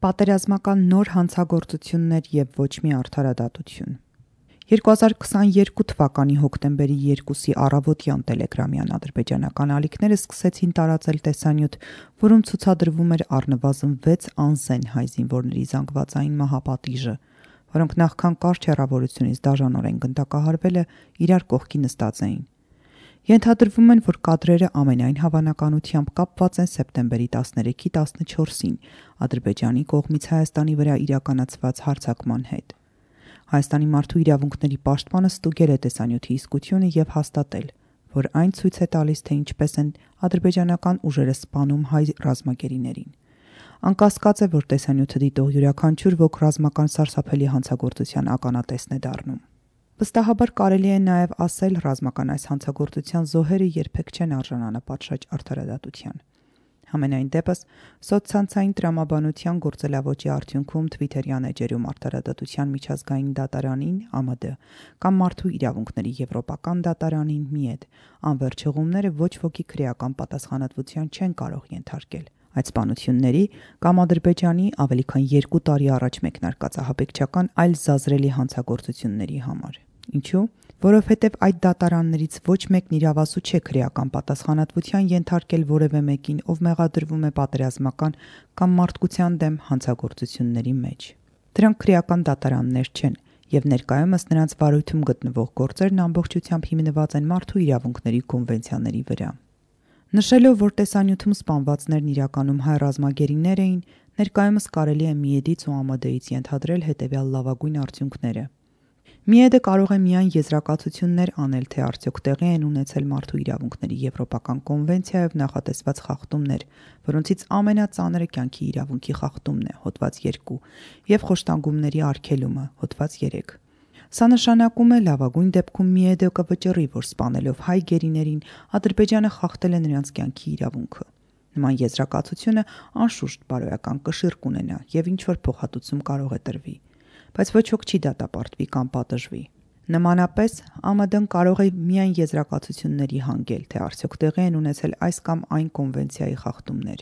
Պատերազմական նոր հանցագործություններ և ոչ մի արդարադատություն։ 2022 թվականի հոկտեմբերի 2-ի առավոտյան տելեգրամյան ադրբեջանական ալիքները սկսեցին տարածել տեսանյութ, որում ցուցադրվում էր առնվազն 6 անզեն հայ զինվորների զանգվածային մահապատիժը, որոնք նախքան կարճ հեռավորությունից դաժանորեն գնդակահարվելը իրար կողքի նստած էին։ Ենթադրվում են, որ կադրերը ամենայն հավանականությամբ կապված են սեպտեմբերի 13-ի 14-ին Ադրբեջանի կողմից Հայաստանի վրա իրականացված հարձակման հետ։ Հայաստանի մարդու իրավունքների պաշտպանը ստուգել է տեսանյութի իսկությունը և հաստատել, որ այն ցույց է տալիս, թե ինչպես են ադրբեջանական ուժերը սպանում հայ ռազմագերիներին։ Անկասկած է, որ տեսանյութը դիտող յուրաքանչյուր ոք ռազմական սարսափելի հանցագործության ականատեսն է դառնում։ Վստահաբար կարելի է նաև ասել, ռազմական այս հանցագործության զոհերը երբեք չեն արժանանա պատշաճ արդարադատության։ Համենայն դեպս, սոցցանցային տրամաբանության գործելավոճի արդյունքում Թվիթերյան էջերում արդարադատության միջազգային դատարանին (ԱՄԴ) կամ Մարդու իրավունքների եվրոպական դատարանին (ՄԻԵԴ) անվերջ հղումները ոչ ոքի քրեական պատասխանատվության չեն կարող ենթարկել այդ սպանությունների կամ Ադրբեջանի ավելի քան 2 տարի առաջ մեկնարկած ահաբեկչական այլ զազրելի հանցագործությունների համար։ Ինչու՞։ Որովհետև այդ դատարաններից ոչ մեկն իրավասու չէ քրեական պատասխանատվության ենթարկել որևէ մեկին, ով մեղադրվում է պատերազմական կամ մարդկության դեմ հանցագործությունների մեջ։ Դրանք քրեական դատարաններ չեն, և ներկայումս նրանց վարույթում գտնվող գործերն ամբողջությամբ հիմնված են մարդու իրավունքների կոնվենցիաների վրա։ Նշելով, որ տեսանյութում սպանվածներն իրականում հայ ռազմագերիներ էին, ներկայումս կարելի է ՄԻԵԴ-ից ու ԱՄԴ-ից ենթադրել հետևյալ լավագույն արդյունքները։ ՄԻԵԴ-ը կարող է միայն եզրակացություններ անել, թե արդյոք տեղի են ունեցել մարդու իրավունքների եվրոպական կոնվենցիայով նախատեսված խախտումներ, որոնցից ամենածանրը կյանքի իրավունքի խախտումն է (հոդված 2) և խոշտանգումների արգելումը (հոդված 3)։ Սա նշանակում է, լավագույն դեպքում ՄԻԵԴ-ը կվճռի, որ սպանելով հայ գերիներին Ադրբեջանը խախտել է նրանց կյանքի իրավունքը։ Նման եզրակացությունը անշուշտ բարոյական կշիռ կունենա և ինչ-որ փոխհատուցում կարող է տրվի, բայց ոչ ոք չի դատապարտվի կամ պատժվի։ Նմանապես, ԱՄԴ-ն կարող է միայն եզրակացությունների հանգել, թե արդյոք տեղի են ունեցել այս կամ այն կոնվենցիայի խախտումներ։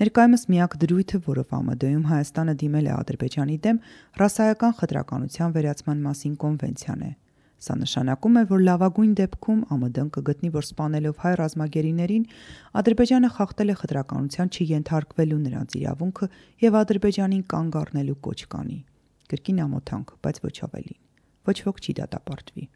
Ներկայումս միակ դրույթը, որով ԱՄԴ-ում Հայաստանը դիմել է Ադրբեջանի դեմ, ռասայական խտրականության վերացման մասին կոնվենցիան է։ Սա նշանակում է, որ լավագույն դեպքում ԱՄԴ-ն կգտնի, որ սպանելով հայ ռազմագերիներին Ադրբեջանը խախտել է խտրականության չենթարկվելու նրանց իրավունքը և Ադրբեջանին կանգ առնելու կոչ կանի։ Կրկին ամոթանք, բայց ոչ ավելին։ Ոչ ոք չի դատապարտվի։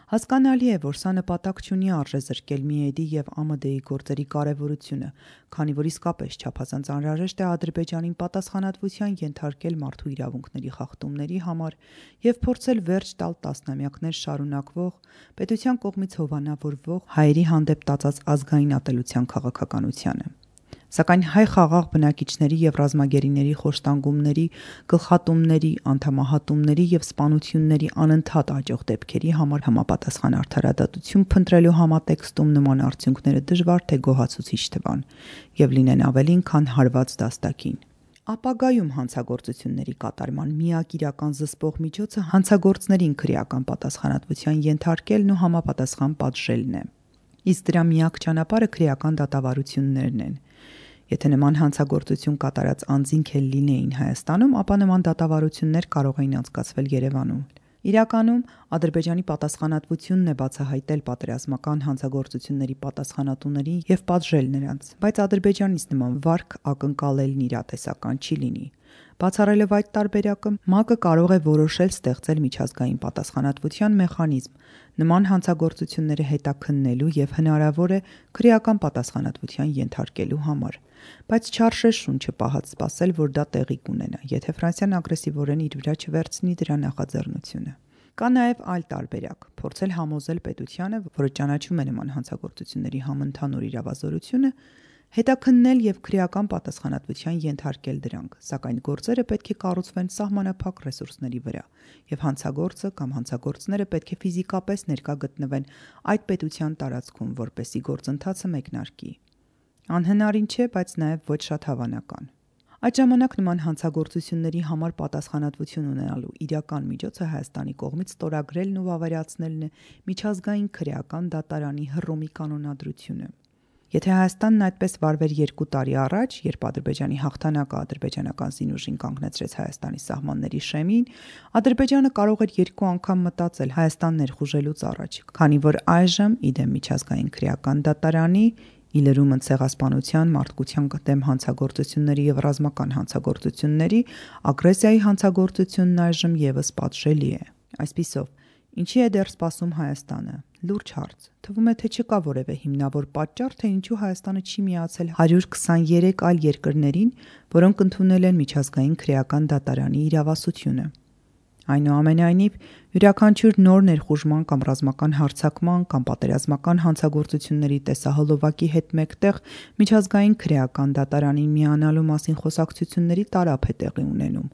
Հասկանալի է, որ սա նպատակ չունի արժեզրկել ՄԻԵԴ-ի և ԱՄԴ-ի գործերի կարևորությունը, քանի որ իսկապես չափազանց անհրաժեշտ է Ադրբեջանին պատասխանատվության ենթարկել մարդու իրավունքների խախտումների համար և փորձել վերջ տալ տասնամյակներ շարունակվող, պետության կողմից հովանավորվող հայերի հանդեպ տածած ազգային ատելության քաղաքականությանը։ Սակայն հայ խաղաղ բնակիչների և ռազմագերիների խոշտանգումների, գլխատումների, անդամահատումների և սպանությունների անընդհատ աճող դեպքերի համար համապատասխան արդարադատություն փնտրելու համատեքստում նման արդյունքները դժվար թե գոհացուցիչ թվան և լինեն ավելին, քան հարված դաստակին։ Ապագայում հանցագործությունների կատարման միակ իրական զսպող միջոցը հանցագործներին քրեական պատասխանատվության ենթարկելն ու համապատասխան պատժելն է։ Իսկ դրա միակ ճանապարհը քրեական դատավարություններն են։ Եթե նման հանցագործություն կատարած անձինք էլ լինեին Հայաստանում, ապա նման դատավարություններ կարող էին անցկացվել Երևանում։ Իրականում, Ադրբեջանի պատասխանատվությունն է բացահայտել պատերազմական հանցագործությունների պատասխանատուներին և պատժել նրանց, բայց Ադրբեջանից նման վարք ակնկալելն իրատեսական չի լինի։ Բացառելով այդ տարբերակը, ՄԱԿ-ը կարող է որոշել ստեղծել միջազգային պատասխանատվության մեխանիզմ նման հանցագործությունները հետաքննելու և հնարավոր է քրեական պատասխանատվության ենթարկելու համար, բայց չարժե շունչը պահած սպասել, որ դա տեղի կունենա, եթե Ֆրանսիան ագրեսիվորեն իր վրա չվերցնի դրա նախաձեռնությունը։ Կա նաև այլ տարբերակ՝ փորձել համոզել պետությանը, որը ճանաչում է նման հանցագործությունների համընդհանուր իրավազորությունը, հետաքննել և քրեական պատասխանատվության ենթարկել դրանք, սակայն գործերը պետք է կառուցվեն սահմանափակ ռեսուրսների վրա, և հանցագործը կամ հանցագործները պետք է ֆիզիկապես ներկա գտնվեն այդ պետության տարածքում, որպեսզի գործընթացը մեկնարկի։ Անհնարին չէ, բայց նաև ոչ շատ հավանական։ Այդ ժամանակ նման հանցագործությունների համար պատասխանատվություն ունենալու իրական միջոցը Հայաստանի կողմից ստորագրելն ու վավերացնելն է միջազգային քրեական դատարանի Հռոմի կանոնադրությունը։ Եթե Հայաստանն այդպես վարվեր 2 տարի առաջ, երբ Ադրբեջանի հաղթանակը ադրբեջանական զինուժին կանգնեցրեց Հայաստանի սահմանների շեմին, Ադրբեջանը կարող էր 2 անգամ մտածել Հայաստան ներխուժելուց առաջ, քանի որ այժմ, իդեմ միջազգային քրեական դատարանի, ի լրումն ցեղասպանության, մարդկության դեմ հանցագործությունների եւ ռազմական հանցագործությունների, ագրեսիայի հանցագործությունն այժմ եւս պատժելի է։ Այսպիսով, ինչի է դեռ սպասում Հայաստանը։ Լուրջ հարց։ Թվում է, թե չկա որևէ հիմնավոր պատճառ, թե ինչու Հայաստանը չի միացել 123 այլ երկրներին, որոնք ընդունել են միջազգային քրեական դատարանի իրավասությունը։ Այնուամենայնիվ, յուրաքանչյուր նոր ներխուժման կամ ռազմական հարձակման կամ պատերազմական հանցագործությունների տեսահոլովակի հետ մեկտեղ միջազգային քրեական դատարանին միանալու մասին խոսակցությունների տարափ է տեղի ունենում։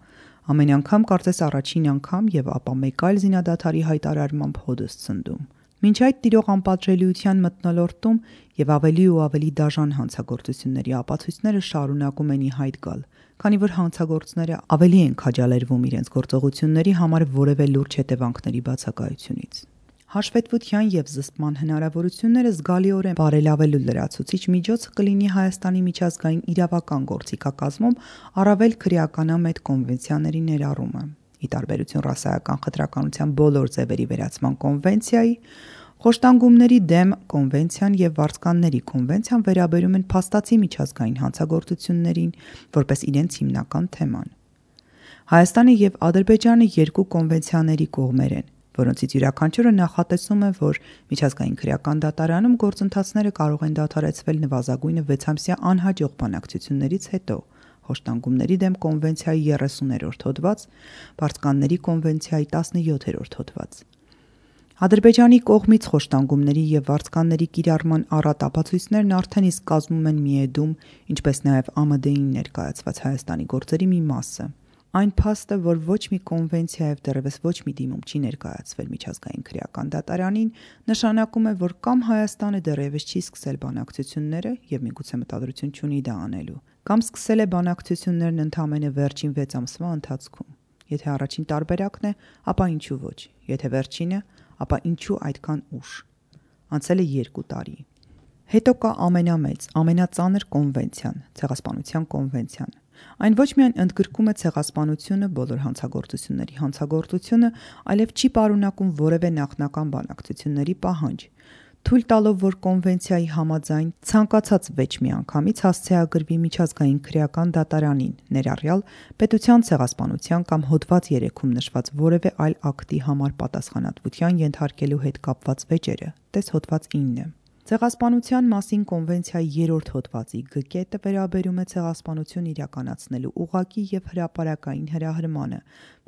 Ամեն անգամ կարծես առաջին անգամ եւ ապա մեկ այլ զինադադարի հայտարարմամբ հոդս ցնդում։ Մինչ այդ տիրող անպատժելիության մթնոլորտում եւ ավելի ու ավելի դաժան հանցագործությունների ապացույցները շարունակում են ի հայտ գալ, քանի որ հանցագործները ավելի են քաջալերվում իրենց գործողությունների համար որևէ լուրջ հետևանքների բացակայությունից։ Հաշվետվության եւ զսպման հնարավորությունները զգալիորեն բարելավելու լրացուցիչ միջոցը կլինի Հայաստանի միջազգային իրավական գործիքակազմում առավել քրեականամետ կոնվենցիաների ներառումը։ Ի տարբերություն ռասայական խտրականության բոլոր ձևերի վերացման կոնվենցիայի, խոշտանգումների դեմ կոնվենցիան եւ վարձկանների կոնվենցիան վերաբերում են փաստացի միջազգային հանցագործություններին որպես իրենց հիմնական թեման։ Հայաստանը եւ Ադրբեջանը 2 կոնվենցիաների կողմեր են, որոնցից յուրաքանչյուրը նախատեսում է, որ միջազգային քրեական դատարանում գործընթացները կարող են դադարեցվել նվազագույնը 6 ամսյա անհաջող բանակցություններից հետո։ Խոշտանգումների դեմ կոնվենցիայի 30-րդ հոդված, վարձկանների կոնվենցիայի 17-րդ հոդված։ Ադրբեջանի կողմից խոշտանգումների եւ վարձկանների կիրառման առատ ապացույցներն արդեն իսկ կազմում են միեդում, ինչպես նաեւ ԱՄԴ-ին ներկայացված Հայաստանի գործերի մի մասը։ Այն փաստը, որ ոչ մի կոնվենցիա եւ դեռևս ոչ մի դիմում չի ներկայացվել միջազգային քրեական դատարանին, նշանակում է, որ կամ Հայաստանը դեռևս չի սկսել բանակցությունները եւ միգուցե մտադրություն չունի դա անելու, կամ սկսել է բանակցություններն ընդամենը վերջին 6 ամսվա ընթացքում։ Եթե առաջին տարբերակն է, ապա ինչու ոչ։ Եթե վերջինը, ապա ինչու այդքան ուշ։ Անցել է 2 տարի։ Հետո կա ամենամեծ, ամենածանր կոնվենցիան, ցեղասպանության կոնվենցիան։ Այն ոչ միայն ընդգրկում է ցեղասպանությունը, բոլոր հանցագործությունների հանցագործությունը, այլև չի պարունակում որևէ նախնական բանակցությունների պահանջ, թույլ տալով, որ կոնվենցիայի համաձայն ցանկացած վեճ միանգամից հասցեագրվի միջազգային քրեական դատարանին, ներառյալ պետության ցեղասպանության կամ հոդված 3-ում նշված որևէ այլ ակտի համար պատասխանատվության ենթարկելու հետ կապված վեճերը, տես հոդված 9։ Ցեղասպանության մասին կոնվենցիայի 3-րդ հոդվածի Գ կետը վերաբերում է ցեղասպանություն իրականացնելու ուղղակի եւ հրապարակային հրահրմանը,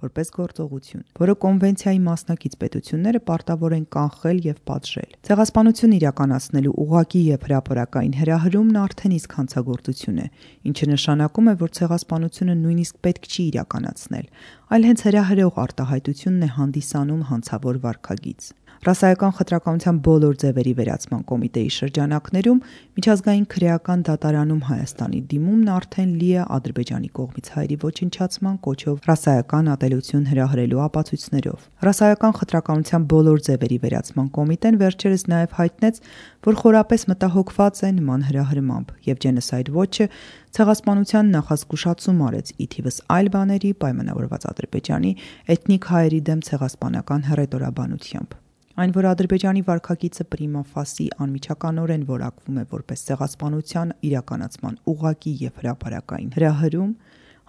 որպես գործողություն, որը կոնվենցիայի մասնակից պետությունները պարտավոր են կանխել եւ պատժել։ Ցեղասպանություն իրականացնելու ուղղակի եւ հրապարակային հրահրումն արդեն իսկ հանցագործություն է, ինչը նշանակում է, որ ցեղասպանությունը նույնիսկ պետք չի իրականացնել, այլ հենց հրահրող արտահայտությունն է հանդիսանում հանցավոր վարքագիծ։ Ռասայական խտրականության բոլոր ձևերի վերացման կոմիտեի շրջանակներում միջազգային քրեական դատարանում Հայաստանի դիմումն արդեն լի է Ադրբեջանի կողմից հայերի ոչնչացման կոչով ռասայական ատելություն հրահրելու ապացույցներով։ Ռասայական խտրականության բոլոր ձևերի վերացման կոմիտեն վերջերս նաև հայտնեց, որ խորապես մտահոգված է նման հրահրմամբ եւ Genocide Watch-ը ցեղասպանության նախազգուշացում արեց ի թիվս այլ բաների պայմանավորված Ադրբեջանի էթնիկ հայերի դեմ ցեղասպանական հռետորաբանությամբ։ Այն, որ Ադրբեջանի վարքագիծը prima facie անմիջականորեն որակվում է որպես ցեղասպանության իրականացման ուղղակի եւ հրապարակային հրահրում,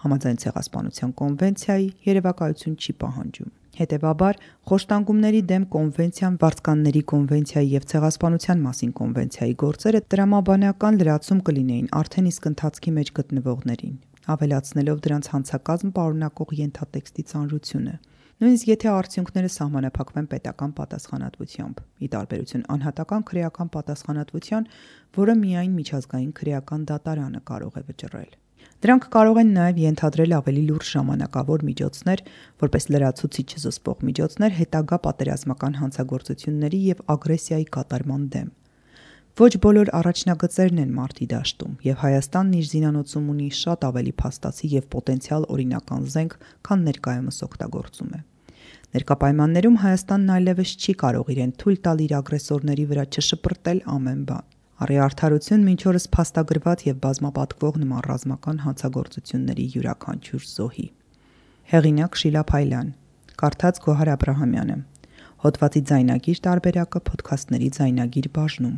համաձայն ցեղասպանության կոնվենցիայի երևակայություն չի պահանջում։ Հետևաբար, խոշտանգումների դեմ կոնվենցիան, վարձկանների կոնվենցիայի եւ ցեղասպանության մասին կոնվենցիայի գործերը տրամաբանական լրացում կլինեին արդեն իսկ ընթացքի մեջ գտնվողներին, ավելացնելով դրանց հանցակազմ պարունակող ենթատեքստի ծանրությունը։ Նույնիսկ եթե արդյունքները սահմանափակվեն պետական պատասխանատվությամբ, ի տարբերություն անհատական քրեական պատասխանատվության, որը միայն միջազգային քրեական դատարանը կարող է վճռել։ Դրանք կարող են նաև ենթադրել ավելի լուրջ ժամանակավոր միջոցներ, որպես լրացուցիչ զսպող միջոցներ հետագա պատերազմական հանցագործությունների եւ ագրեսիայի կատարման դեմ։ Ոչ բոլոր առաջնագծերն են մարտի դաշտում, եւ Հայաստանն իր զինանոցում ունի շատ ավելի փաստացի եւ պոտենցիալ օրինական զենք, քան ներկայումս օգտագործում է։ Ներկա պայմաններում Հայաստանն այլևս չի կարող իրեն թույլ տալ իր ագրեսորների վրա չշպրտել ամեն բան։ Առի արդարություն մինչ օրս փաստագրված եւ բազմապատկվող նման ռազմական հանցագործությունների յուրաքանչյուր զոհի։ Հեղինակ Շիլա Փայլյան, կարդաց Գոհար Աբրահամյանը։ Հոդվածի ձայնագիր տարբերակը Փոդքասթների ձայնագիր բաժնում։